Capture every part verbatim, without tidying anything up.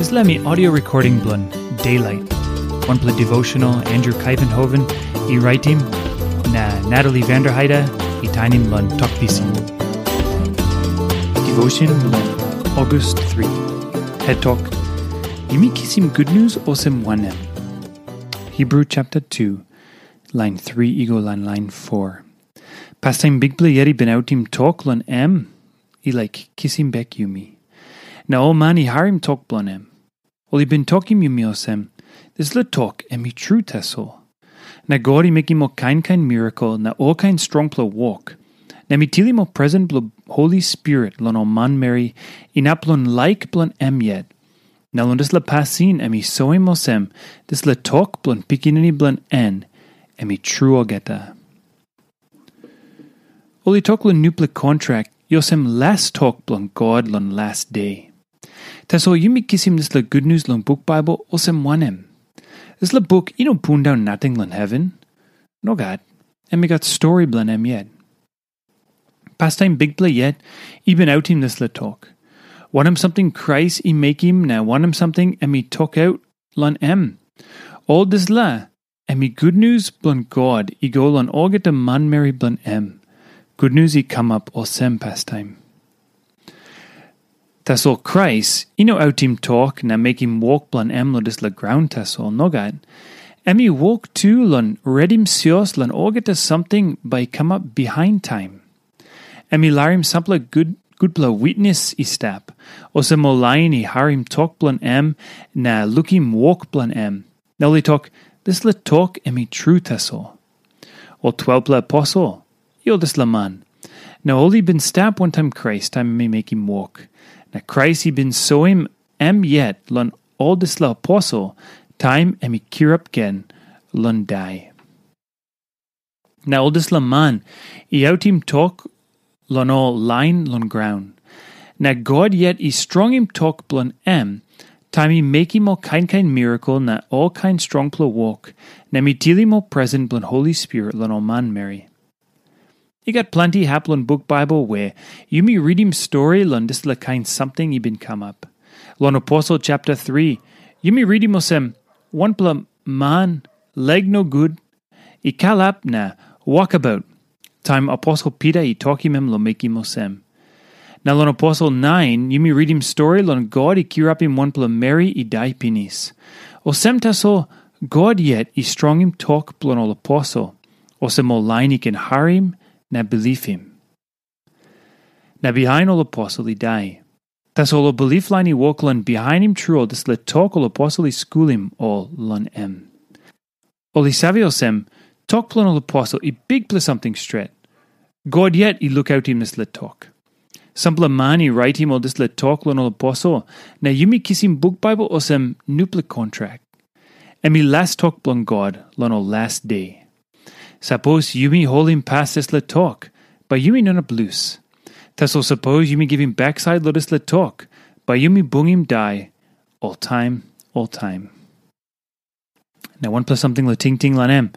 Dispela mi audio recording bilong Daylight, wanpela devotional Andrew Kaivenhoven i raitim, na Natalie Vanderheide i tainim long Tok Pisin. Devotion bilong August three. Het tok, yumi kisim gutnius olsem wanem? Hebrew chapter two, line three i go long line four. Pastaim Bikpela yet i bin autim tok long em, i laik kisim bek yumi. Na ol man i harim tok bilong em. Ol i bin tokim yumi olsem, dispela tok em i tru tasol. Na God i mekim ol kain kain mirakel na olkain strongpela wok. Na mi tilim ol presen bilong Holi Spirit long ol manmeri inap long laik bilong em yet. Na long dispela pasin em i soim olsem, dispela tok bilong Pikinini bilong en, em i tru olgeta. Ol i tok long nupela kontrak, i olsem las tok bilong God long las de. Tasol yumi kisim dispela gutnius long buk Baibel olsem wanem? Dispela buk i no pundaun nating long heven. Nogat, em i gat stori bilong em yet. Pastaim Bikpela yet i bin autim dispela tok. Wanem samting Krais i mekim na wanem samting em i tokaut long em? Ol dispela em i gutnius bilong God i go long olgeta manmeri bilong em. Gutnius i kamap olsem pastaim. Tasol Krais i no autim tok na mekim wok bilong em long dispela graun tasol, nogat. Em i wok tu long redim sios long olgeta samting bai i kamap bihain taim. Em i larim sampela gut, gutpela witnis i stap, olsem ol lain i harim tok bilong em na lukim wok bilong em. Na ol i tok, dispela tok em i tru tasol. Ol twelpela aposel, i ol dispela man. Na ol i bin stap wantaim Krais taim em i mekim wok. Na Krais i bin soim em yet long ol dispela aposel taim em i kirap gen long dai. Na ol dispela man i autim tok long ol lain long graun. Na God yet i strongim tok bilong em, taim i mekim ol kain kain mirakel na ol kain strongpela wok, na mi tilim ol presen bilong Holi Spirit long ol manmeri. I gat planti hap long buk Baibel we yumi ritim stori long dispela kain samting i bin kamap. Long Aposel chapter three, yumi ritim olsem, wanpela man, leg no gut, i kalap na wokabaut, taim Aposel Pita i tokim em long mekim olsem. Na long Aposel nine, yumi ritim stori long God i kirapim wanpela meri i dai pinis. Olsem tasol, God yet i strongim tok bilong ol aposel, olsem ol lain i ken harim na bilipim. Na bihain ol aposel i dai. Tasol ol bilip lain i wok long bihainim tru ol dispela tok ol aposel i skulim ol long em. Ol i save olsem, tok bilong ol aposel i bikpela samting stret. God yet i lukautim dispela tok. Sampela man i raitim ol dispela tok long ol aposel, na yumi kisim buk Baibel olsem nupela kontrak. Em i las tok bilong God long ol las de. Sapos yumi holim pas dispela tok, bai yumi no inap lus. Tasol sapos yumi givim baksait long dispela tok, bai yumi bungim dai oltaim, oltaim. Na wanpela samting long tingting long em.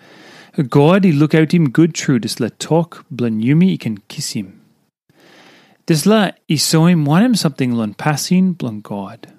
God i lukautim gut tru dispela tok bilong yumi i ken kisim. Dispela i soim wanem samting long pasin bilong God.